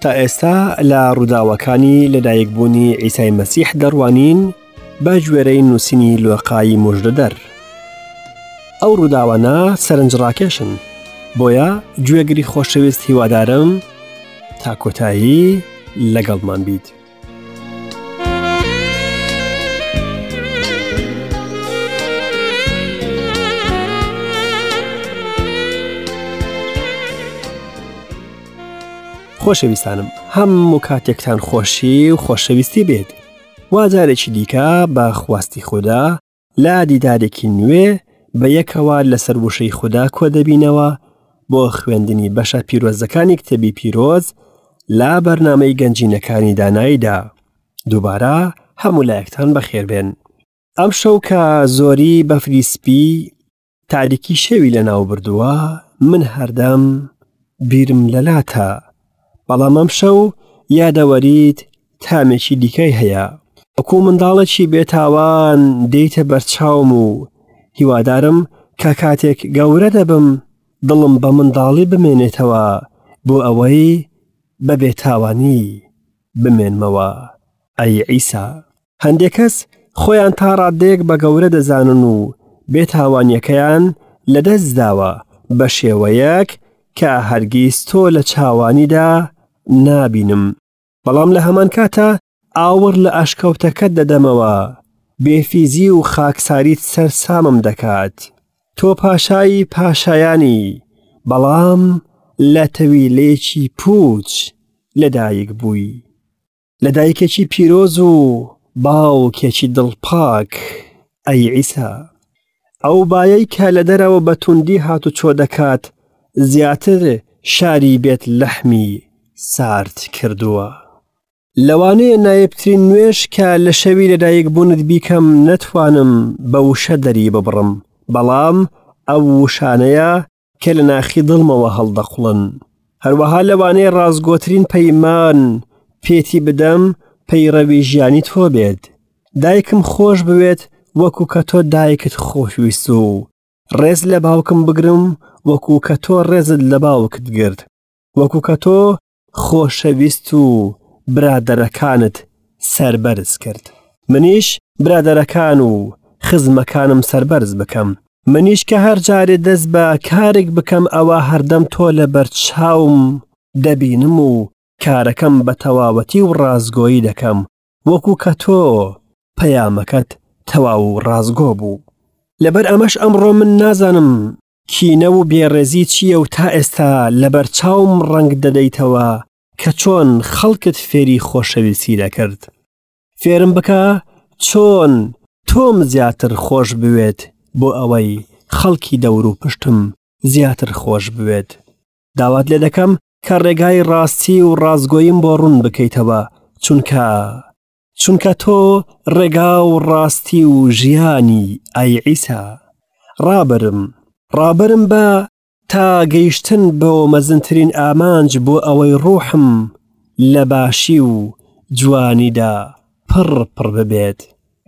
تا ئێستا لە ڕووداوەکانی لەدایکبوونی عیسای مەسیح دەڕوانین بە گوێرەی نووسینی لۆقای مژدەدەر. ئەو ڕووداوانە سەرنجڕاکێشن، بۆیە گوێگری خۆشەویست هیوادارم تا کۆتایی لەگەڵمان بیت. خۆشەویستانم هەموو کاتێکتان خۆشی و خۆشەویستی بێت وا جارێکی دیکە بە خواستی خوددا لە دیدارێکی نوێ بە یەکەوە لەسەر وشەی خودا کۆ دەبینەوە بۆ خوێندنی بەشە پیرۆزەکانی کتێبی پیرۆز لە بەرنامەی گەنجینەکانی داناییدا دووبارە هەموو لایەکتان بەخێربێن ئەم شەو کە زۆری بەفری سپی تاریکی شەوی لەناو بردووە من هەردەم بیرم لەلاتە بەڵام ئەم شەو یادەوەریت تامێکی دیکەی هەیە وەکو منداڵێکی بێتاوان دێیتە بەرچاوم و هیوادارم کە کاتێک گەورە دەبم دڵم بە منداڵی بمێنێتەوە بۆ ئەوەی بە بێتاوانی بمێنمەوە ئەی عیسا هەندێک کەس خۆیان تا ڕادەیەک بە گەورە دەزانن و بێتاوانیەکەیان لەدەست داوە بە شێوەیەک کە هەرگیز تۆ لە چاوانیدا نابینم بەڵام لە هەمان کاتا ئاوڕ لە ئەشکەوتەکەت دەدەمەوە بێفیزی و خاکساریت سەرسامم دەکات تۆ پاشای پاشایانی بەڵام لە تەویلەیەکی پوچ لەدایک بووی لە دایکێکی پیرۆز و باوکێکی دڵپاک ئەی عیسا ئەو بایەی کە لە دەرەوە بە توندی هاتوچۆ دەکات زیاتر شاری بێت لەحمی سارد کردووە. لەوانەیە نایبترین نوێژ کە لە شەوی لەدایک بوونت بیکەم نەتوانم بە وشە دەری ببڕم بەڵام ئەو وشانەیە کە لە ناخی دڵمەوە هەڵدەقوڵن. هەروەها لەوانەیە ڕاستگۆترین پەیمان پێتی بدەم پەیڕەوی ژیانی تۆ بێت. دایکم خۆش بوێت وەکو کە تۆ دایکت خۆشویست و ڕێز لە باوکم بگرم وەکو کە تۆ ڕێزت لە باوکت گرت وەکو کە تۆ خۆشەویست و برادەرەکانت سەربەرز کرد منیش برادەرەکان و خزمەکانم سەربەرز بکەم منیش کە هەر جارێ دەست بە کارێک بکەم ئەوە هەردەم تۆ لە بەرچاوم دەبینم و کارەکەم بە تەواوەتی و ڕاستگۆیی دەکەم وەکو کە تۆ پەیامەکەت تەواو و ڕاستگۆ بوو لەبەر ئەمەش ئەمڕۆ من نازانم کینە و بێڕێزی چییە و تا ئێستا لەبەر چاوم ڕەنگ دەدەیتەوە کە چۆن خەڵکت فێری خۆشەویستی دەکرد. فێرم بکە چۆن تۆم زیاتر خۆش بوێت بۆ ئەوەی خەڵکی دەور و پشتم زیاتر خۆش بوێت. داوات لێ دەکەم کە ڕێگای ڕاستی و ڕاستگۆیم بۆ ڕوون بکەیتەوە چونکە چونکە تۆ ڕێگا و ڕاستی و ژیانی ئەی عیسا ڕابەرم ڕابەرم بە تا گەیشتن بۆ مەزنترین ئامانج بۆ ئەوەی ڕوحم لە باشی و جوانیدا پڕ پڕ ببێت.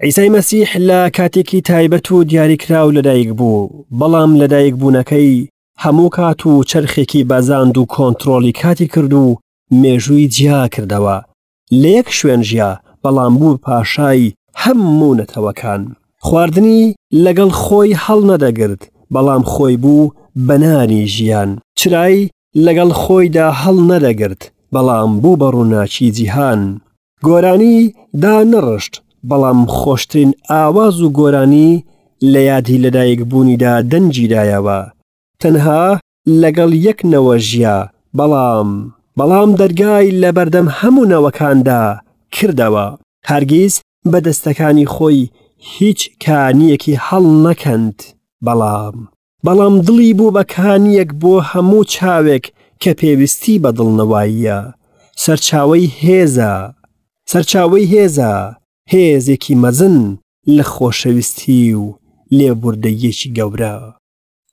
عیسای مەسیح لە کاتێکی تایبەت و دیاریکراو لەدایک بوو، بەڵام لەدایکبوونەکەی هەموو کات و چەرخێکی بەزاند و کۆنترۆڵی کاتی کرد و مێژووی جیا کردەوە. لە یەک شوێن ژیا، بەڵام بوو پاشای هەموو نەتەوەکان. خواردنی لەگەڵ خۆی هەڵنەدەگرت، بەڵام خۆی بوو بە نانی ژیان. چرای لەگەڵ خۆیدا هەڵنەدەگرت، بەڵام بوو بە ڕووناکی جیهان. گۆرانی دانەڕشت، بەڵام خۆشترین ئاواز و گۆرانی لە یادی لەدایکبوونیدا دەنگی دایەوە. تەنها لەگەڵ یەک نەوە ژیا، بەڵام بەڵام دەرگای لەبەردەم هەموو نەوەکاندا کردەوە. هەرگیز بە دەستەکانی خۆی هیچ کانییەکی هەڵنەکەند، بەڵام بەڵام دڵی بوو بە کانییەک بۆ هەموو چاوێک کە پێویستی بە دڵنەواییە. سەرچاوەی هێزە. سەرچاوەی هێزە، هێزێکی مەزن لە خۆشەویستی و لێبوردەییەکی گەورە.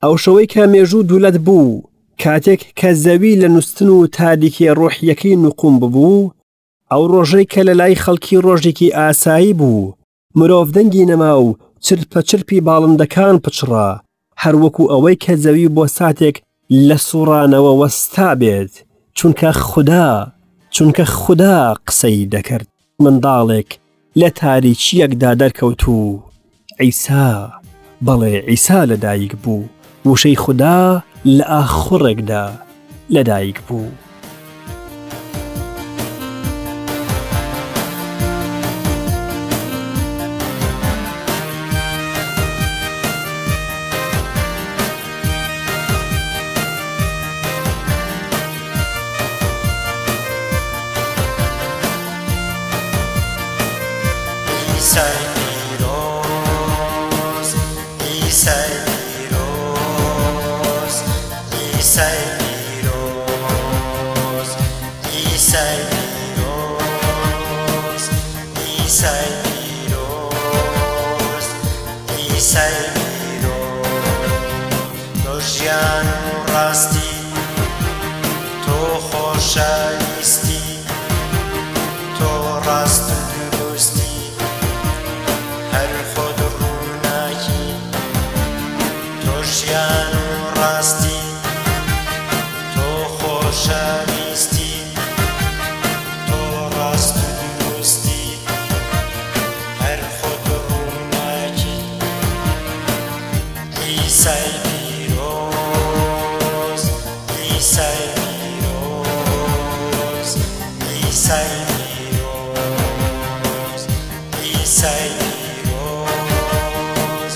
ئەو شەوەی کە مێژوو دوولەت بوو، کاتێک کە زەوی لە نوستن و تاریکیە ڕۆحیەکەی نوقوم ببوو، ئەو ڕۆژەی کە لە لای خەڵکی ڕۆژێکی ئاسایی بوو، مرۆڤ دەنگی نەما و چرپە چرپی باڵندەکان پچڕا، هەر وەکو ئەوەی کە زەوی بۆ ساتێک لە سوڕانەوە وەستا بێت، چونکە خودا. چونکە خودا قسەی دەکرد. منداڵێک لە تاریکییەکدا دەرکەوت و عیسا، بەڵێ عیسا لەدایک بوو، وشەی خودا لە ئاخوڕێکدا لەدایک بوو. عیسای پیرۆز عیسای پیرۆز عیسای پیرۆز عیسای پیرۆز عیسای پیرۆز عیسای پیرۆز تۆ ژیان و ڕاستی تۆ خۆشەویستی تۆ ڕاست و دروستی هەر خۆت ڕووناکی تۆ ژیان و ڕاستی تۆ خۆشەویستی تۆ ڕاست و دروستی هەر خۆت ڕووناکی عیسای پیرۆز عیسای پیرۆز عیسای پیرۆز عیسای پیرۆز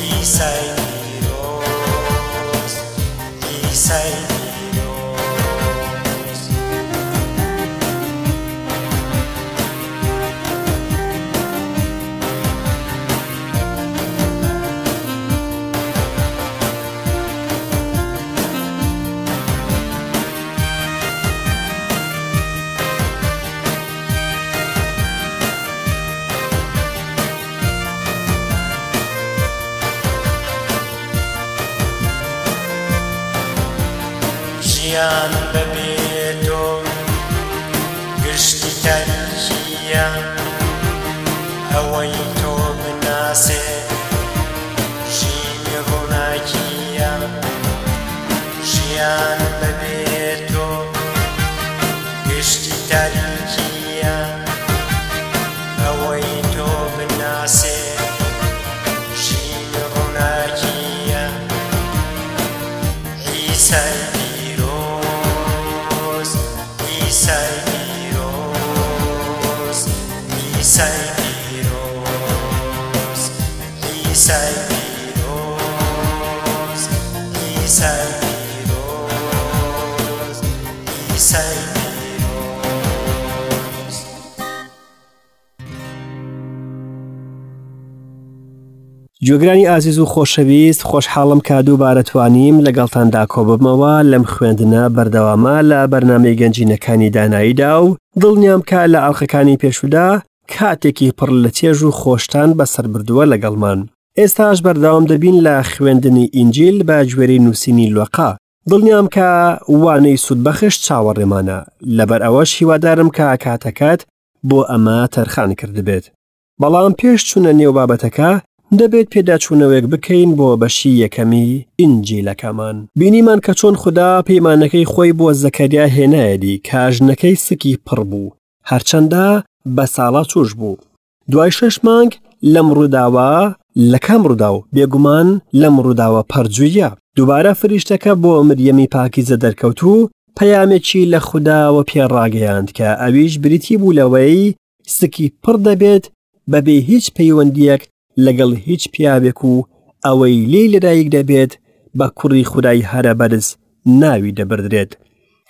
عیسای پیرۆز عیسای پیرۆز. ژیان بەبێ تۆ گشتی تاریکییە ئەوەی تۆ بناسێ ژینی ڕووناکییە ژیان بەبێ تۆ گشتی تاریکییە ئەوەی تۆ بناسێ ژینی ڕووناکییە عیسای پیرۆز عیسای پیرۆز عیسای پیرۆز عیسای پیرۆز عیسای پیرۆز عیسای پیرۆز. گوێگرانی ئازیز و خۆشەویست خۆشحاڵم کە دووبارە توانیم لەگەڵتاندا کۆببمەوە لەم خوێندنە بەردەوامە لە بەرنامەی گەنجینەکانی داناییدا و دڵنیام کە لە ئەڵقەکانی پێشودا کاتێکی پڕ لە چێژ و خۆشتان بەسەر بردووە لەگەڵمان ئێستاش بەردەوام دەبین لە خوێندنی ئینجیل بە گوێرەی نووسینی لۆقا دڵنیام کە وانەی سوودبەخش چاوەڕێمانە لەبەر ئەوەش هیوادارم کە کاتەکەت بۆ ئەمە تەرخان کردبێت بەڵام پێش چوونە نێو بابەتەکە دەبێت پێداچوونەوەیەک بکەین بۆ بەشی یەکەمی ئینجیلەکەمان. بینیمان کە چۆن خودا پەیمانەکەی خۆی بۆ زەکەریا هێنایەدی کە ژنەکەی سکی پڕ بوو، هەرچەندە بە ساڵا چووش بوو. دوای شەش مانگ لەم ڕووداوە، لە کام ڕووداو؟ بێگومان لەم ڕووداوە پەرجوویە. دووبارە فریشتەکە بۆ مریەمی پاکیزە دەرکەوت و پەیامێکی لە خوداوە پێ ڕاگەیاند کە ئەویش بریتی بوو لەوەی سکی پڕ دەبێت بەبێ هیچ پەیوەندیەک لەگەڵ هیچ پیاوێک و ئەوەی لێی لەدایک دەبێت بە کوڕی خودای هەرە بەرز ناوی دەبردرێت.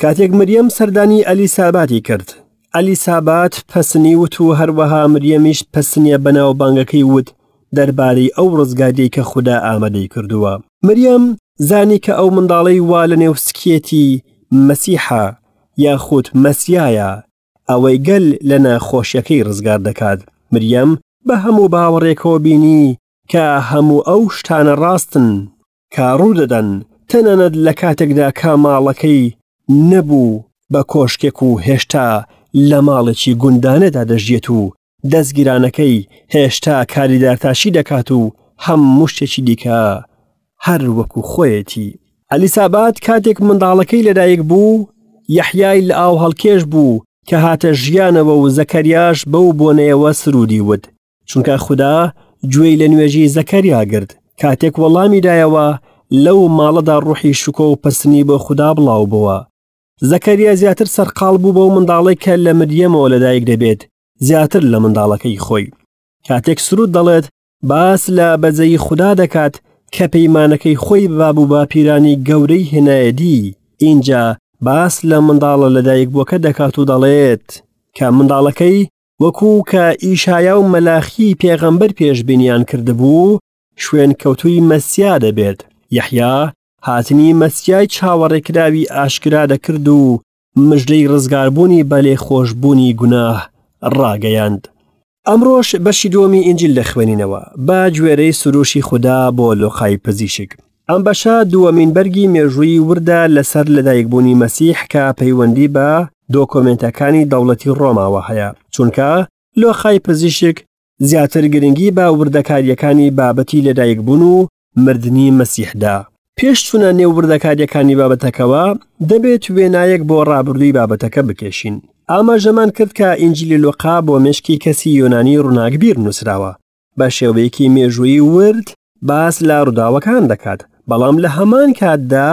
کاتێک مریەم سەردانی ئەلیساباتی کرد، ئەلیسابات پەسنی وت و هەروەها مریەمیش پەسنیە بەناوبانگەکەی وت دەربارەی ئەو ڕزگاریەی کە خودا ئامادەی کردووە. مریەم زانی کە ئەو منداڵەی وا لەنێو سکیەتی مەسیحە یاخود مەسیایە، ئەوەی گەل لە ناخۆشیەکەی ڕزگار دەکات. مریەم بە هەموو باوەڕێکەوە بینی کە هەموو ئەو شتانە ڕاستن کە ڕوودەدەن، تەنانەت لە کاتێکدا کە ماڵەکەی نەبوو بە کۆشکێک و هێشتا لە ماڵێکی گوندانەدا دەژیێت و دەستگیرانەکەی هێشتا کاری دارتاشی دەکات و هەموو شتێکی دیکە هەر وەکو خۆیەتی. ئەلیسابات کاتێک منداڵەکەی لەدایک بوو، یەحیای لە ئاو هەڵکێش بوو. کە هاتە ژیانەوە و زەکەریاش بەو بۆنەیەوە سرودی وت چونکە خودا گوێی لە نوێژی زەکەریا گرت کاتێک وەڵامی دایەوە لەو ماڵەدا ڕوحی شکۆ و پەسنی بۆ خودا بڵاو بووە زەکەریا زیاتر سەرقاڵ بوو بەو منداڵێک کە لە مریەمەوە لەدایک دەبێت زیاتر لە منداڵەکەی خۆی کاتێک سرود دەڵێت باس لە بەزەیی خودا دەکات کە پەیمانەکەی خۆی بە باب و باپیرانی گەورەی هێنایەدی، ئینجا باس لە منداڵە لەدایکبووەکە دەکات و دەڵێت کە منداڵەکەی وەکو کە ئیشایا و مەلاخی پێغەمبەر پێشبینیان کردبوو شوێنکەوتووی مەسیا دەبێت. یەحیا هاتنی مەسیای چاوەڕێکراوی ئاشکرا دەکرد و مژدەی ڕزگاربوونی بە لێخۆشبوونی گوناه ڕاگەیاند. ئەمڕۆش بەشی دووەمی ئینجیل دەخوێنینەوە بە گوێرەی سروشی خودا بۆ لۆقای پزیشک. ئەم بەشە دووەمین بەرگی مێژوویی وردە لەسەر لەدایکبوونی مەسیح کە پەیوەندی بە دۆکۆمێنتەکانی دەوڵەتی ڕۆماوە هەیە، چونکە لۆقای پزیشک زیاتر گرنگی بە وردەکارییەکانی بابەتی لەدایکبوون و مردنی مەسیحدا. پێش چوونە نێو وردەکارییەکانی بابەتەکەوە، دەبێت وێنایەک بۆ ڕابردووی بابەتەکە بکێشین. ئاماژەمان کرد کە ئینجیلی لوقا بۆ مێشکی کەسی یۆنانی ڕووناکبیر نووسراوە. بە شێوەیەکی مێژوویی ورد باس لە ڕووداوەکان دەکات، بەڵام لە هەمان کاتدا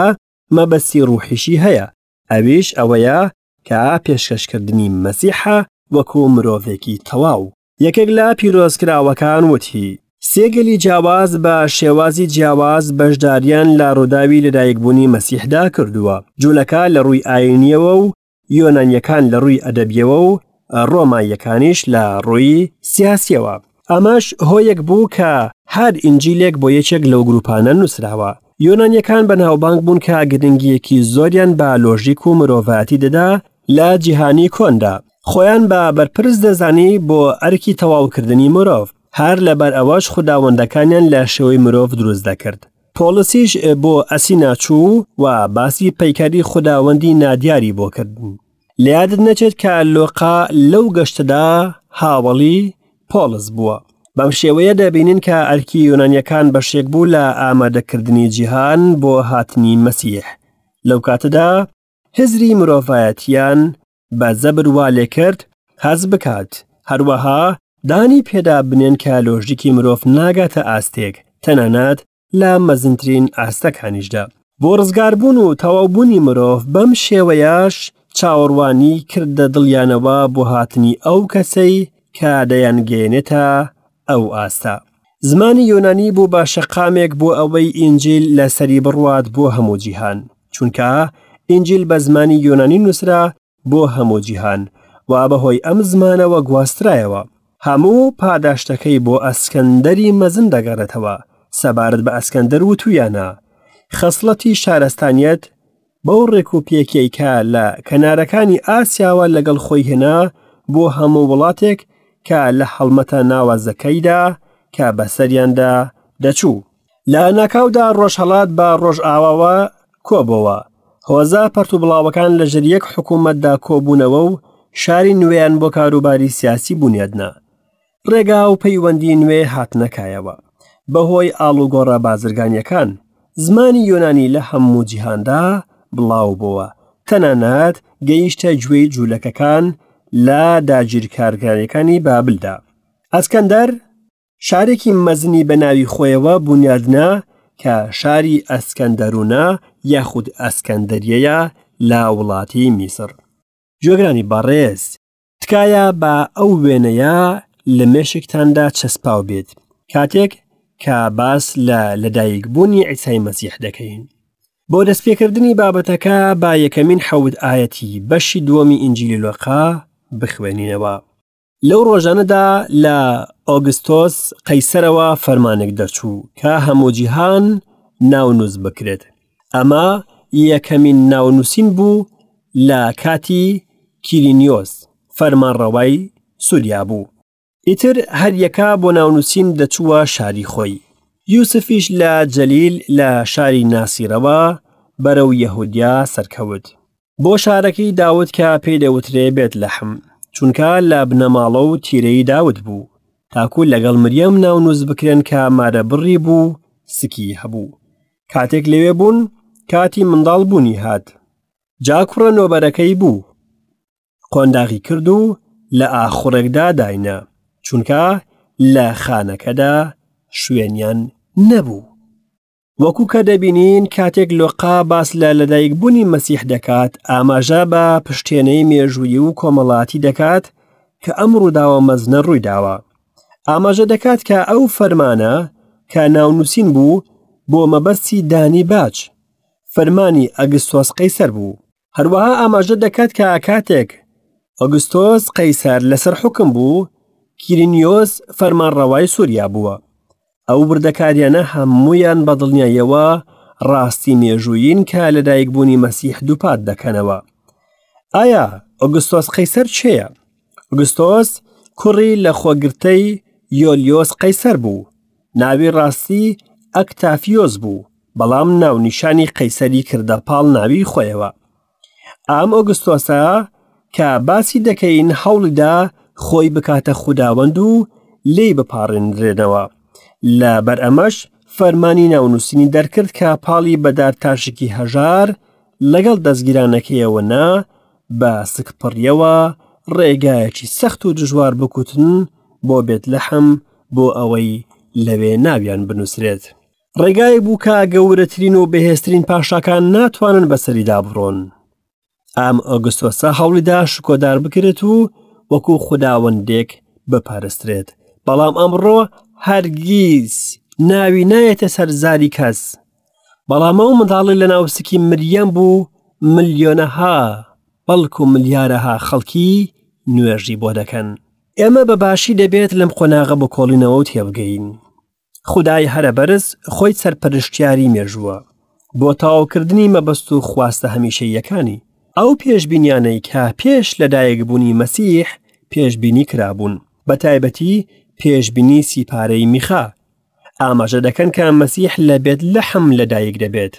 مەبەستی ڕوحیشی هەیە، ئەویش ئەوەیە کە پێشکەشکردنی مەسیحە وەکو مرۆڤێکی تەواو. یەکێک لە پیرۆزکراوەکان وتی، سێ گەلی جیاواز بە شێوازی جیاواز بەشداریان لە ڕووداوی لەدایکبوونی مەسیحدا کردووە، جوولەکە لە ڕووی ئایینییەوە و یۆنانییەکان لە ڕووی ئەدەبییەوە و ڕۆماییەکانیش لە ڕووی سیاسییەوە. ئەمەش هۆیەک بوو کە هەر ئینجیلێک بۆ یەکێک لەو گروپانە نووسراوە. یۆنانییەکان بەناوبانگ بوون کە گرنگییەکی زۆریان بە لۆژیک و مرۆڤایەتی دەدا لە جیهانی کۆندا. خۆیان بە بەرپرس دەزانی بۆ ئەرکی تەواوکردنی مرۆڤ، هەر لەبەر ئەوەش خوداوەندەکانیان لە شێوەی مرۆڤ دروست دەکرد. پۆڵسیش بۆ ئەسینا چوو و باسی پەیکەری خوداوەندی نادیاری بۆ کردن. لە یادت نەچێت کە لۆقا لەو گەشتەدا هاوەڵی پۆڵس بووە. بەم شێوەیە دەبینین کە ئەرکی یۆنانیەکان بەشێک بوو لە ئامادەکردنی جیهان بۆ هاتنی مەسیح. لەو کاتەدا هزری مرۆڤایەتیان بە زەبر وا لێکرد هەست بکات، هەروەها دانی پێدا بنێن کە لۆژیکی مرۆڤ ناگاتە ئاستێک، تەنانەت لە مەزنترین ئاستەکانیشدا. بۆ ڕزگاربوون و تەواوبوونی مرۆڤ، بەم شێوەیەش چاوەڕوانی کردە دڵیانەوە بۆ هاتنی ئەو کەسەی کە دەیانگەیەنێتە ئەو ئاستە. زمانی یۆنانی بوو بە شەقامێک بۆ ئەوەی ئینجیل لەسەری بڕوات بۆ هەموو جیهان، چونکە ئینجیل بە زمانی یۆنانی نووسرا بۆ هەموو جیهان و بەهۆی ئەم زمانەوە گواسترایەوە. هەموو پاداشتەکەی بۆ ئەسکەندەری مەزن دەگەڕێتەوە، سەبارەت بە ئەسکەندەر وتوویانە، خەسڵەتی شارستانیەت بەو ڕێک و پێکیەی کە لە کەنارەکانی ئاسیاوە لەگەڵ خۆی هێنا بۆ هەموو وڵاتێک کە لە هەڵمەتە ناوازەکەیدا کە بەسەریاندا دەچوو. لە ناکاودا ڕۆژهەڵات بە ڕۆژئاواوە کۆبۆوە. هۆزە پەرتوبڵاوەکان لەژێر یەک حکوومەتدا کۆبوونەوە و شاری نوێیان بۆ کاروباری سیاسی بونیادنا. ڕێگا و پەیوەندی نوێ هاتنە کایەوە. بەهۆی ئاڵوگۆڕە بازرگانییەکان، زمانی یۆنانی لە هەموو جیهاندا بڵاو بۆوە، تەنانەت گەیشتە گوێی جوولەکەکان لە داگیرکارگارییەکانی بابلدا. ئەسکەندەر شارێکی مەزنی بە ناوی خۆیەوە بونیادنا کە شاری ئەسکەندەرونە یاخود ئەسکەندەریەیە لە وڵاتی میسڕ. گوێگرانی بەڕێز، تکایە با ئەو وێنەیە لە مێشکتاندا چەسپاو بێت کاتێک کە باس لە لەدایکبوونی عیسای مەسیح دەکەین. بۆ دەستپێکردنی بابەتەکە با یەکەمین حەوت ئایەتی بەشی دووەمی ئینجیلی لۆقا بخوێنینەوە. لەو ڕۆژانەدا لە ئۆگستۆس قەیسەرەوە فەرمانێک دەرچوو کە هەموو جیهان ناونووس بکرێت. ئەمە یەکەمین ناونووسین بوو لە کاتی کیرینیۆس فەرمانڕەوای سووریا بوو. ئیتر هەریەکە بۆ ناونووسین دەچووە شاری خۆی. یوسفیش لە جەلیل لە شاری ناسیرەوە بەرەو یەهودیا سەرکەوت. بۆ شارەکەی داود کە پێی دەوترێ بێتلەحم، چونکە لە بنەماڵە و تیرەی داود بوو، تاکو لەگەڵ مریەم ناونووس بکرێن کە مارەبڕی بوو سکی هەبوو. کاتێک لەوێ بوون، کاتی منداڵ بوونی هات. جا کوڕە نۆبەرەکەی بوو. قۆنداغی کرد و لە ئاخوڕێکدا داینا، چونکە لە خانەکەدا شوێنیان نەبوو. وەکو کە دەبینین کاتێک لۆقا باس لە لەدایکبوونی مەسیح دەکات ئاماژە بە پشتێنەی مێژوویی و کۆمەڵاتی دەکات کە ئەم ڕووداوە مەزنە ڕوویداوە ئاماژە دەکات کە ئەو فەرمانە کە ناونووسین بوو بۆ مەبەستی دانی باج فەرمانی ئەگستۆس قەیسەر بوو هەروەها ئاماژە دەکات کە کاتێک ئۆگستۆس قەیسەر لەسەر حوکم بوو، کیرینیۆس فەرمانڕەوای سووریا بووە. ئەو وردەکاریانە هەموویان بە دڵنیاییەوە ڕاستی مێژوویین کە لەدایکبوونی مەسیح دووپات دەکەنەوە. ئایا ئۆگستۆس قەیسەر کێیە؟ ئۆگستۆس کوڕی لەخۆگرتەی یۆلیۆس قەیسەر بوو. ناوی ڕاستی ئەکتافیۆس بوو، بەڵام ناونیشانی قەیسەری کردە پاڵ ناوی خۆیەوە. ئەم ئۆگستۆسە کە باسی دەکەین هەوڵیدا خۆی بکاتە خوداوەند و لێی بپاڕێنرێنەوە. لە بەر ئەمەش فەرمانی ناونووسینی دەرکرد کە پاڵی بە دارتاشێکی هەژار لەگەڵ دەستگیرانەکەیەوە نا بە سکپڕیەوە ڕێگایەکی سەخت و دژوار بکوتن بۆ بێتلەحم بۆ ئەوەی لەوێ ناویان بنووسرێت. ڕێگایەک بوو کە گەورەترین و بەهێزترین پاشاکان ناتوانن بەسەریدا بڕۆن. ئەم ئۆگستۆسە هەوڵیدا شکۆدار بکرێت و وەکو خوداوەندێک بپەرسترێت، بەڵام ئەمڕۆ هەرگیز ناوی نایەتە سەر زاری کەس. بەڵام ئەو منداڵی لە ناوسکی مریەم بوو ملیۆنەها بەڵکو ملیارەها خەڵکی نوێژی بۆ دەکەن. ئێمە بە باشی دەبێت لەم قۆناغە بکۆڵینەوە و تێبگەین. خودای هەرە بەرز خۆی سەرپەرشتیاری مێژووە بۆ تەواوکردنی مەبەست و خواستە هەمیشەییەکانی. ئەو پێشبینیانەی کە پێش لەدایکبوونی مەسیح پێشبینی کرابوون، بە تایبەتی پێشبینی سیپارەی میخا، ئاماژە دەکەن کە مەسیح لە بێت لەحم لەدایک دەبێت.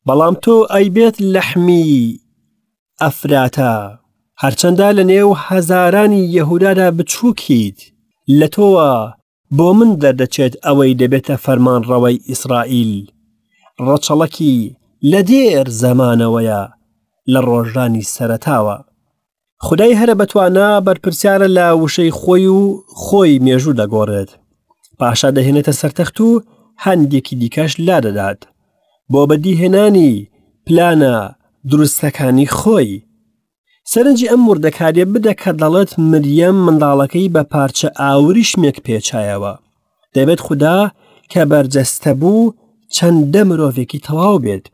بەڵام تۆ ئەی بێت لەحمی ئەفراتە، هەرچەندە لە نێو هەزارانی یەهودادا بچووکیت، لە تۆوە بۆ من دەردەچێت ئەوەی دەبێتە فەرمانڕەوای ئیسرائیل، ڕەچەڵەکی لە دێر زەمانەوەیە، لە ڕۆژانی سەرەتاوە. خودای هەرە بەتوانا بەرپرسیارە لە وشەی خۆی و خۆی مێژوو دەگۆڕێت. پاشا دەهێنێتە سەر تەخت و هەندێکی دیکەش لادەدات بۆ بەدیهێنانی پلانە دروستەکانی خۆی. سەرنجی ئەم وردەکاریە بدە کە دەڵێت مریەم منداڵەکەی بە پارچە ئاوریشمێک پێچایەوە. دەبێت خودا کە بەرجەستە بوو چەندە مرۆڤێکی تەواو بێت.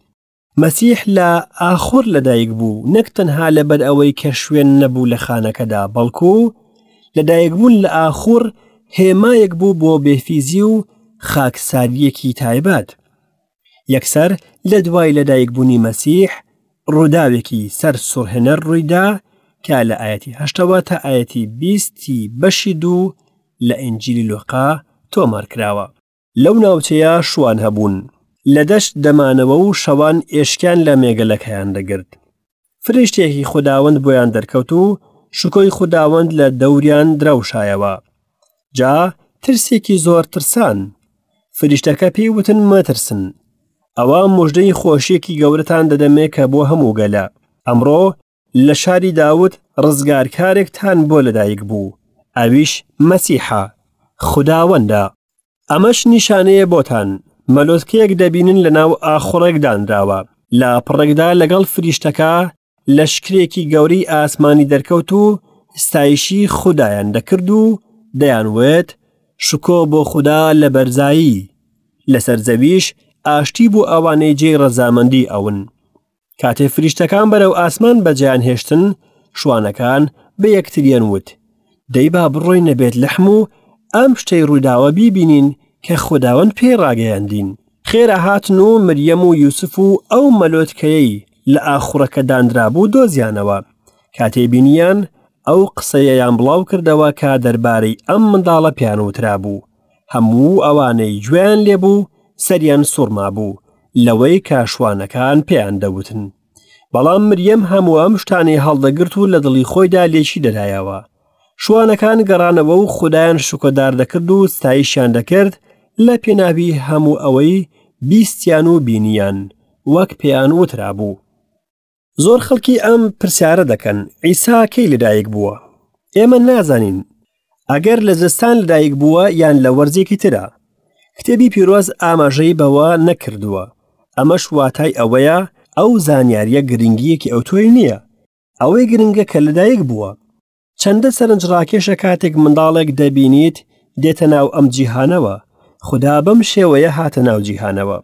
مەسیح لە ئاخور لەدایک بوو نەک تەنها لەبەر ئەوەی کە شوێن نەبوو لە خانەکەدا بەڵکو لەدایکبوون لە ئاخور هێمایەک بوو بۆ بێفیزی و خاکسارییەکی تایبەت. یەکسەر لە دوای لەدایکبوونی مەسیح ڕووداوێکی سەر سوڕهێنەر ڕوویدا کە لە ئاەتی هەشتەوە تا ئاەتی بیستی بەشی دوو لە ئینجیلی لۆقا تۆمار کراوە. لەو ناوچەیە شوان هەبوون لە دەشت دەمانەوە و شەوان ئێشکیان لە مێگەلەکەیان دەگرت. فریشتێکی خوداوەند بۆیان دەرکەوت و شکۆی خوداوەند لە دەوریان درەوشایەوە. جا ترسێکی زۆر ترسان. فریشتەکە پێی وتن مەترسن. ئەوە مژدەی خۆشیەکی گەورەتان دەدەمێ کە بۆ هەموو گەلە. ئەمڕۆ لە شاری داود ڕزگارکارێکتان بۆ لەدایک بوو، ئەویش مەسیحە، خوداوەندە. ئەمەش نیشانەیە بۆتان، مەلۆتکەیەک دەبینن لەناو ئاخوڕێک دانراوە. لە پڕێکدا لەگەڵ فریشتەکە لەشکرێکی گەورەی ئاسمانی دەرکەوت و ستایشی خودایان دەکرد و دەیانوت، شکۆ بۆ خودا لە بەرزایی، لەسەر زەویش ئاشتی بۆ ئەوانەی جێی ڕەزامەندی ئەون. کاتێ فریشتەکان بەرەو ئاسمان بەجێیان هێشتن، شوانەکان بە یەکتریان وت، دەی با بڕۆینە بێتلەحم و ئەم شتەی ڕوویداوە بیبینین کە خوداوەند پێی ڕاگەیاندین. خێرا هاتن و مریەم و یوسف و ئەو مەلۆتکەیەی لە ئاخوڕەکە دانرابوو دۆزیانەوە. کاتێ بینییان، ئەو قسەیەیان بڵاو کردەوە کە دەربارەی ئەم منداڵە پێیان وترابوو. هەموو ئەوانەی گوێیان لێبوو سەریان سوڕمابوو لەوەی کە شوانەکان پێیان دەوتن. بەڵام مریەم هەموو ئەم شتانەی هەڵدەگرت و لە دڵی خۆیدا لێکی دەدایەوە. شوانەکان گەڕانەوە و خودایان شکۆدار دەکرد و ستایشیان دەکرد لە پێناوی هەموو ئەوەی بیستیان و بینیان، وەک پێیان وترابوو. زۆر خەڵکی ئەم پرسیارە دەکەن عیسا کەی لەدایک بووە؟ ئێمە نازانین ئەگەر لە زستان لەدایک بووە یان لە وەرزێکی ترە. کتێبی پیرۆز ئاماژەی بەوە نەکردووە. ئەمەش واتای ئەوەیە ئەو زانیاریە گرنگیەکی ئەوتۆی نییە. ئەوەی گرنگە کە لەدایک بووە. چەندە سەرنجڕاکێشە کاتێک منداڵێک دەبینیت دێتە ناو ئەم جیهانەوە. خودا بەم شێوەیە هاتە ناو جیهانەوە.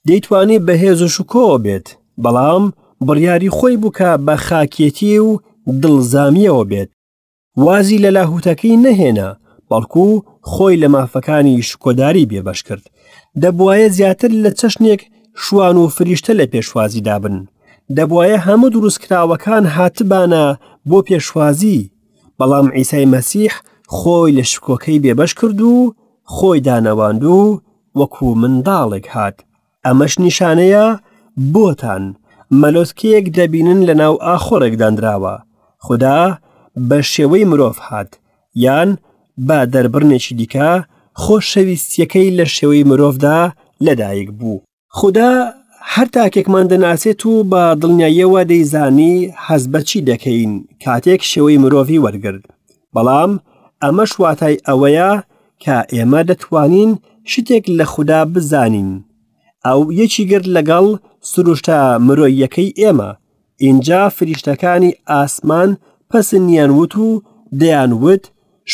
دەیتوانی بە هێز و شکۆوە بێت، بەڵام بڕیاری خۆی بوو کە بە خاکێتی و دڵزامییەوە بێت. وازی لە لاهوتەکەی نەهێنا، بەڵکو خۆی لە مافەکانی شکۆداری بێبەش کرد. دەبوایە زیاتر لە چەشنێک شوان و فریشتە لە پێشوازیدا بن. دەبوایە هەموو دروستکراوەکان هاتبانە بۆ پێشوازی، بەڵام عیسای مەسیح خۆی لە شکۆکەی بێبەش کرد و خۆی دانەواند و وەکو منداڵێک هات. ئەمەش نیشانەیە بۆتان، مەلۆتکەیەک دەبینن لەناو ئاخۆڕێک دانراوە. خودا بە شێوەی مرۆڤ هات، یان بە دەربڕینێکی دیکە، خۆشەویستییەکەی لە شێوەی مرۆڤدا لەدایک بوو. خودا هەر تاکێکمان دەناسێت و بە دڵنیاییەوە دەیزانی هەست بە چی دەکەین کاتێک شێوەی مرۆڤی وەرگرت. بەڵام ئەمەش واتای ئەوەیە کە ئێمە دەتوانین شتێک لە خودا بزانین. ئەو یەکی گرت لەگەڵ سروشتە مرۆییەکەی ئێمە. ئینجا فریشتەکانی ئاسمان پەسنیان وت و دەیان وت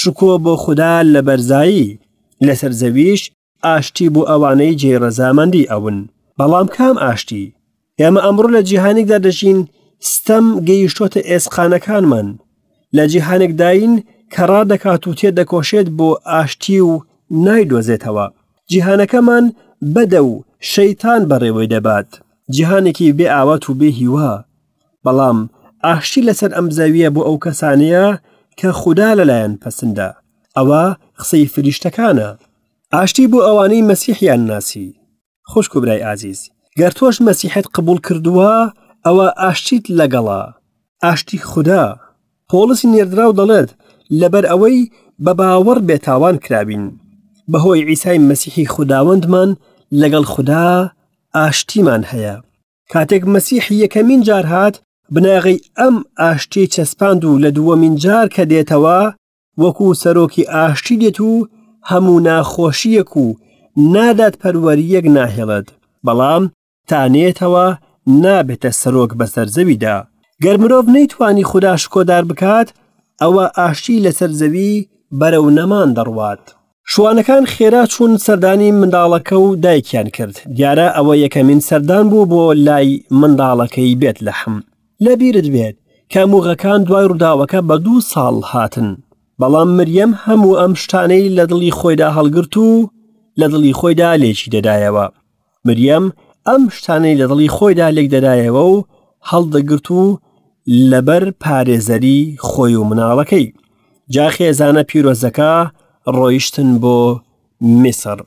شکۆ بۆ خودا لە بەرزایی، لەسەر زەویش ئاشتی بۆ ئەوانەی جێی ڕەزامەندی ئەون. بەڵام کام ئاشتی؟ ئێمە ئەمڕۆ لە جیهانێکدا دەژین ستەم گەیشتۆتە ئێسقانەکانمان. لە جیهانێکداین کە ڕادەکات و تێدەکۆشێت بۆ ئاشتی و نایدۆزێتەوە. جیهانەکەمان بەدە و شەیتان بەڕێوەی دەبات. جیهانێکی بێ ئاوات و بێ هیوا. بەڵام ئاشتی لەسەر ئەم زەویە بۆ ئەو کەسانەیە کە خودا لەلایەن پەسندە. ئەوە قسەی فریشتەکانە. ئاشتی بۆ ئەوانەی مەسیحیان ناسی. خوشک و برای ئازیز، گەر تۆش مەسیحت قبوڵ کردووە، ئەوە ئاشتیت لەگەڵە، ئاشتی خودا. پۆڵسی نێردراو دەڵێت، لەبەر ئەوەی بە باوەڕ بێتاوان کراوین، بەهۆی عیسای مەسیحی خوداوەندمان لەگەڵ خودا ئاشتیمان هەیە. کاتێک مەسیح یەکەمین جار هات، بناغەی ئەم ئاشتیەی چەسپاند و لە دووەمین جار کە دێتەوە، وەکو سەرۆکی ئاشتی دێت و هەموو ناخۆشییەک و نادادپەروەرییەک ناهێڵێت، بەڵام تا نێتەوە نابێتە سەرۆک بەسەر زەویدا. گەر مرۆڤ نەیتوانی خودا شکۆدار بکات، ئەوە ئاشتی لەسەر زەوی بەرەو نەمان دەڕوات. شوانەکان خێرا چوون سەردانی منداڵەکە و دایکیان کرد، دیارە ئەوە یەکەمین سەردان بوو بۆ لای منداڵەکەی بێتلەحم. لەبیرت بێت کە موغەکان دوای ڕووداوەکە بە دوو ساڵ هاتن، بەڵام مریەم هەموو ئەم شتانەی لە دڵی خۆیدا هەڵگرت و لە دڵی خۆیدا لێکی دەدایەوە. مریەم ئەم شتانەی لە دڵی خۆیدا لێک دەدایەوە و هەڵدەگرت و لەبەر پارێزەری خۆی و مناڵەکەی. جا خێزانە پیرۆزەکە ڕۆیشتن بۆ میسر.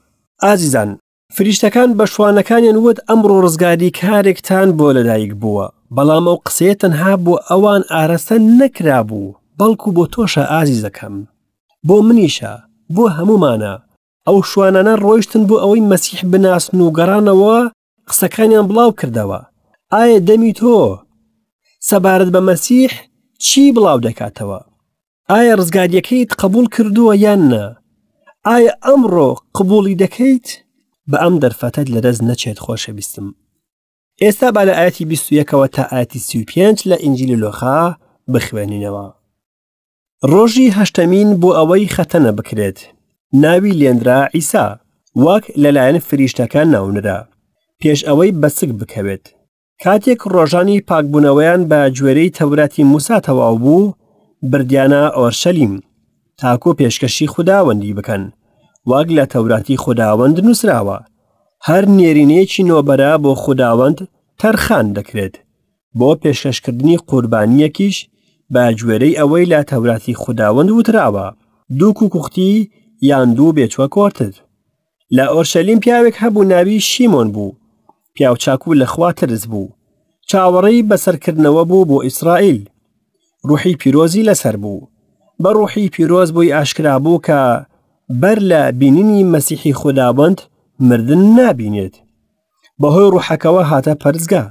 ئازیزان، فریشتەکان بە شوانەکانیان وت ئەمڕۆ ڕزگاری کارێکتان بۆ لەدایک بووە، بەڵام ئەو قسەیە تەنها بۆ ئەوان ئارەستە نەکرابوو، بەڵکو بۆ تۆشە ئازیزەکەم، بۆ منیشە، بۆ هەموومانە. ئەو شوانانە ڕۆیشتن بۆ ئەوەی مەسیح بناسن و گەڕانەوە قسەکانیان بڵاو کردەوە. ئایا دەمی تۆ سەبارەت بە مەسیح چی بڵاو دەکاتەوە؟ ئایا ڕزگاریەکەیت قبول کردووە یان نا؟ ئایا ئەمڕۆ قبولی دەکەیت؟ بە ئەم دەرفەتەت لەدەست نەچێت خۆشەویستم. ئێستا با لە ئاەتی 21ەوە تا ئاەتی 35 لە ئینجیلی لۆخا بخوێنینەوە. ڕۆژی هەشتەمین بۆ ئەوەی خەتەنە بکرێت ناوی لێنرا عیسا وەک لەلایەن فریشتەکە ناونرا پێش ئەوەی بەسک بکەوێت. کاتێک ڕۆژانی پاکبوونەوەیان بە گوێرەی تەوراتی موسا تەواو بوو، بردیانە ئۆرشەلیم، تاکو پێشکەشی خوداوەندی بکەن، وەک لە تەوراتی خوداوەند نووسراوە، هەر نێرینەیەکی نۆبەرە بۆ خوداوەند تەرخان دەکرێت، بۆ پێشکەشکردنی قوربانییەکیش بە گوێرەی ئەوەی لە تەوراتی خوداوەند وتراوە، دوو کوکوختی یان دوو بێچوە کۆرتر. لە ئۆرشەلیم پیاوێک هەبوو ناوی شیمۆن بوو، پیاوچاک و لەخوا ترس بوو، چاوەڕێی بەسەرکردنەوە بوو بۆ ئیسرائیل. ڕوحی پیرۆزی لەسەر بوو. بە ڕوحی پیرۆز بۆی ئاشکرا بوو کە بەر لە بینینی مەسیحی خوداوەند مردن نابینێت. بەهۆی ڕوحەکەوە هاتە پەرستگا.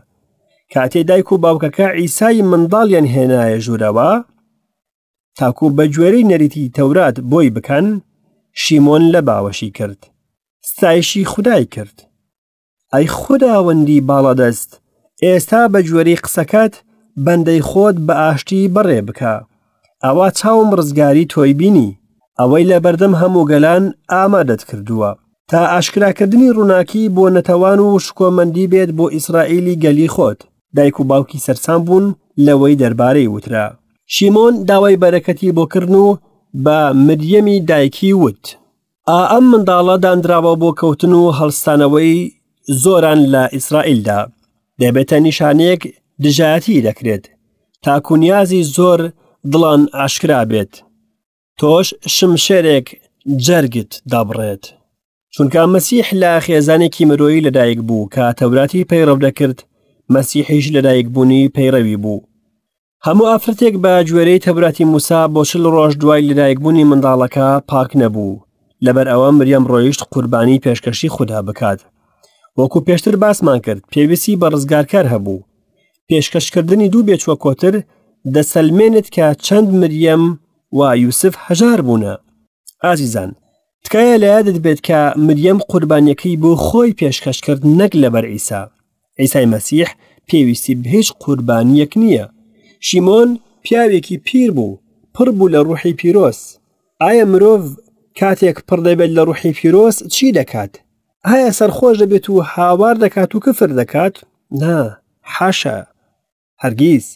کاتێ دایک و باوکەکە عیسای منداڵیان هێنایە ژوورەوە، تاکو بە گوێرەی نەریتی تەورات بۆی بکەن، شیمۆن لە باوەشی کرد، ستایشی خودای کرد. ئەی خوداوەندی باڵادەست، ئێستا بە گوێرەی قسەکەت بەندەی خۆت بە ئاشتی بەڕێ بکە. ئەوا چاوم ڕزگاری تۆی بینی، ئەوەی لە بەردەم هەموو گەلان ئامادەت کردووە، تا ئاشکراکردنی ڕووناکی بۆ نەتەوان و شکۆمەندی بێت بۆئیسرائیلی گەلی خۆت. دایک و باوکی سەرسام بوون لەوەی دەربارەی وترا. شیمۆن داوای بەرەکەتی بۆ کردن و بە مریەمی دایکی وت، ئا ئەم منداڵە دانراوە بۆ کەوتن و هەڵستانەوەی زۆران لە ئیسرائیلدا، دەبێتە نیشانەیەک دژایەتی دەکرێت، تاکو نیازی زۆر دڵان ئاشکرا بێت، تۆش شمشێرێک جەرگت دەبڕێت. چونکە مەسیح لە خێزانێکی مرۆیی لەدایک بوو کە تەوراتی پەیڕەو دەکرد، مەسیحیش لەدایکبوونی پەیڕەوی بوو. هەموو ئافرەتێک بە گوێرەی تەوراتی موسا بۆ چل ڕۆژ دوای لەدایکبوونی منداڵەکە پاک نەبوو، لەبەر ئەوە مریەم ڕۆیشت قوربانی پێشکەشی خودا بکات. وەکو پێشتر باسمان کرد پێویستی بە ڕزگارکەر هەبوو. پێشکەشکردنی دوو بێچوە کۆتر دەسەلمێنێت کە چەند مریەم و یوسف هەژار بوونە. ئازیزان، تکایە لە یادت بێت کە مریەم قوربانیەکەی بۆ خۆی پێشکەش کرد نەک لەبەر عیسا. عیسای مەسیح پێویستی بە هیچ قوربانیەک نییە. شیمۆن پیاوێکی پیر بوو، پڕ بوو لە ڕوحی پیرۆز. ئایا مرۆڤ کاتێک پڕ دەبێت لە ڕوحی پیرۆز چی دەکات؟ ئایا سەرخۆش دەبێت و هاوار دەکات و کفر دەکات؟ نا، حاشا، هەرگیز.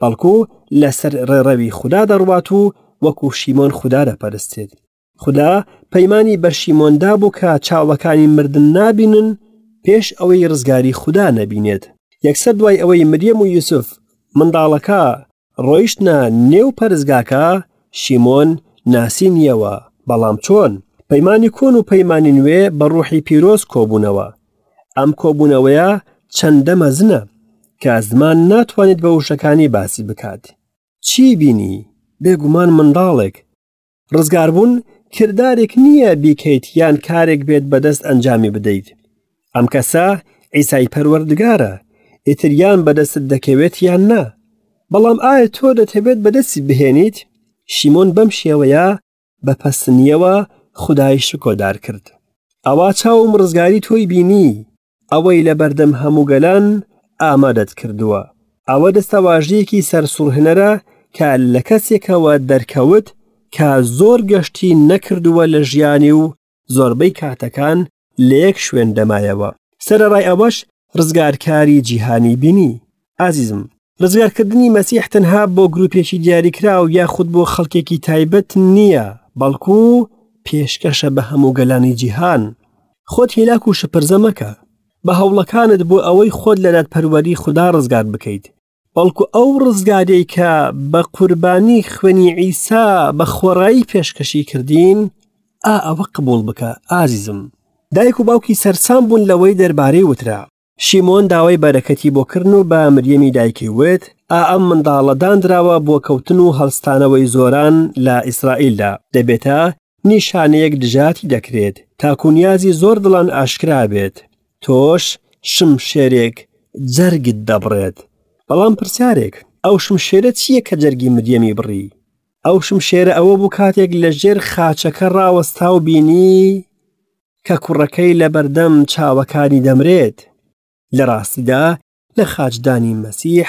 بەڵکو لەسەر ڕێڕەوی خودا دەڕوات و وەکو شیمۆن خودا دەپەرستێت. خودا پەیمانی بە شیمۆن دابوو کە چاوەکانی مردن نابینن پێش ئەوەی ڕزگاری خودا نەبینێت. یەکسەر دوای ئەوەی مریەم و یوسف منداڵەکە ڕۆیشتنە نێو پەرستگاکە، شیمۆن ناسینیەوە، بەڵام چۆن؟ پەیمانی کۆن و پەیمانی نوێ بە ڕوحی پیرۆز کۆبوونەوە. ئەم کۆبوونەوەیە چەندە مەزنە کە زمان ناتوانێت بە وشەکانی باسی بکات. چی بینی؟ بێگومان منداڵێک. ڕزگاربوون کردارێک نییە بیکەیت یان کارێک بێت بەدەست ئەنجامی بدەیت. ئەم کەسە عیسای پەروەردگارە، ئیتر یان بەدەستت دەکەوێت یان نا. بەڵام ئایا تۆ دەتەوێت بەدەستی بهێنیت؟ شیمۆن بەم شێوەیە بە پەسنیەوە خودای شکۆدار کرد. ئەوا چاوم ڕزگاری تۆی بینی، ئەوەی لە بەردەم هەموو گەلان ئامادەت کردووە. ئەوە دەستەواژەیەکی سەرسوڕهێنەرە کە لە کەسێکەوە دەرکەوت کە زۆر گەشتی نەکردووە لە ژیانی و زۆربەی کاتەکان لە یەک شوێن دەمایەوە. سەرەڕای ئەوەش ڕزگارکاری جیهانی بینی. ئازیزم، ڕزگارکردنی مەسیح تەنها بۆ گروپێکی دیاریکراو یاخود بۆ خەڵکێکی تایبەت نییە، بەڵکو پێشکەشە بە هەموو گەلانی جیهان. خۆت هیلاک و شپرزە مەکە بە هەوڵەکانت بۆ ئەوەی خۆت لە دادپەروەری خودا ڕزگار بکەیت، بەڵکو ئەو ڕزگاریەی کە بە قوربانی خوێنی عیسا بە خۆڕایی پێشکەشی کردین، ئا ئەوە قبوڵ بکە ئازیزم. دایک و باوکی سەرسام بوون لەوەی دەربارەی وترا. شیمۆن داوای بەرەکەتی بۆ کردن و بە مریەمی دایکی وت، ئا ئەم منداڵە داندراوە بۆ کەوتن و هەڵستانەوەی زۆران لە ئیسرائیلدا، دەبێتە نیشانەیەک دژایەتی دەکرێت، تاکو نیازی زۆر دڵان ئاشکرا بێت، تۆش شمشێرێک جەرگت دەبڕێت. بەڵام پرسیارێک، ئەو شمشێرە چییە کە جەرگی مریەمی بڕی؟ ئەو شمشێرە ئەوە بوو کاتێک لە ژێر خاچەکە ڕاوەستا و بینی کە کوڕەکەی لە بەردەم چاوەکانی دەمرێت. لە ڕاستیدا لە خاچدانی مەسیح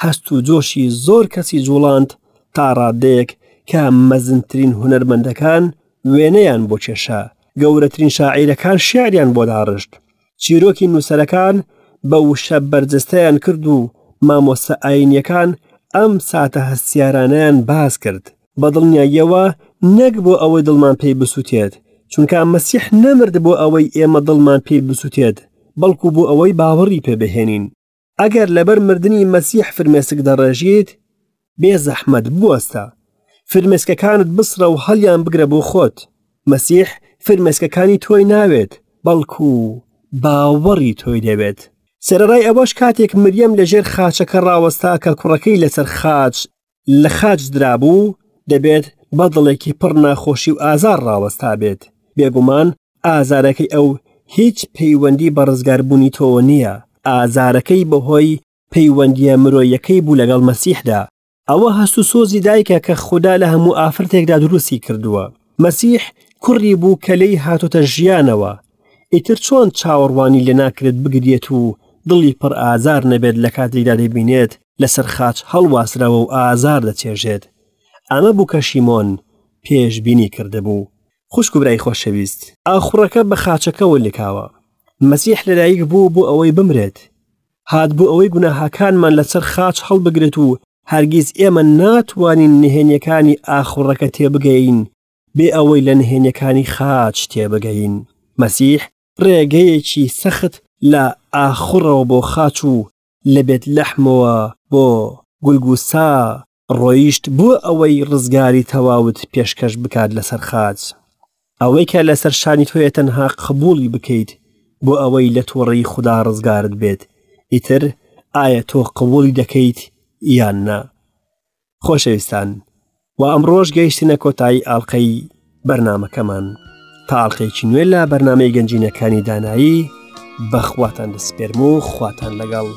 هەست و جۆشی زۆر کەسی جوڵاند تا ڕادەیەک کە مەزنترین هونەرمەندەکان وێنەیان بۆ کێشا، گەورەترین شاعیرەکان شیعریان بۆ داڕشت، چیرۆکی نووسەرەکان بە وشە بەرجەستەیان کرد و مامۆستا ئایینیەکان ئەم ساتە هەستیارانەیان باس کرد. بە دڵنیاییەوە نەک بۆ ئەوەی دڵمان پێی بسووتێت، چونکە مەسیح نەمرد بۆ ئەوەی ئێمە دڵمان پێی بسووتێت، بەڵکو بۆ ئەوەی باوەڕی پێ بهێنین. ئەگەر لەبەر مردنی مەسیح فرمێسک دەڕێژیت، بێ زەحمەت بوەستە. فرمێسکەکانت بسڕە و هەڵیان بگرە بۆ خۆت. مەسیح فرمێسکەکانی تۆی ناوێت، بەڵکو باوەڕی تۆی دەوێت. سەرەڕای ئەوەش کاتێک مریەم لەژێر خاچەکە ڕاوەستا کە کوڕەکەی لەسەر خاچ لە خاچ درابوو، دەبێت بە دڵێکی پڕ ناخۆشی و ئازار ڕاوەستابێت. بێگومان ئازارەکەی ئەو هیچ پەیوەندی بە ڕزگاربوونی تۆوە نییە، ئازارەکەی بەهۆی پەیوەندییە مرۆیەکەی بوو لەگەڵ مەسیحدا. ئەوە هەست و سۆزی دایکە کە خودا لە هەموو ئافرەتێکدا دروستی کردووە. مەسیح کوڕی بوو کە لێی هاتۆتە ژیانەوە. ئیتر چۆن چاوەڕوانی لێ ناکرێت بگریێت و دڵی پڕ ئازار نەبێت لە کاتێکدا دەیبینێت لەسەر خاچ هەڵواسراوە و ئازار دەچێژێت. ئەمە بوو کە شیمۆن پێشبینی کردبوو. خوشک و برای خۆشەویست، ئاخوڕەکە بە خاچەکەوە لکاوە. مەسیح لەدایک بوو بۆ ئەوەی بمرێت. هات بۆ ئەوەی گوناهەکانمان لەسەر خاچ هەڵبگرێت و هەرگیز ئێمە ناتوانین نهێنیەکانی ئاخوڕەکە تێبگەین بێ ئەوەی لە نهێنیەکانی خاچ تێبگەین. مەسیح ڕێگەیەکی سەخت لە ئاخوڕەوە بۆ خاچ و لە بێت لەحمەوە بۆ گولگوسا ڕۆیشت بۆ ئەوەی ڕزگاری تەواوت پێشکەش بکات لەسەر خاچ. ئەوەی کە لەسەر شانی تۆیە تەنها قبوڵی بکەیت بۆ ئەوەی لە توڕەیی خودا ڕزگارت بێت، ئیتر ئایا تۆ قبوڵی دەکەیت یان نا؟ خۆشەویستان و ئەمڕۆش گەیشتنە کۆتایی ئاڵلقەی بەرنمەکەمان تا ئاڵلقەیەکی نوێ لە بەرنمەی گەنجینەکانی دانایی بەخواتان دەسپێرم و خواتان لەگەڵ.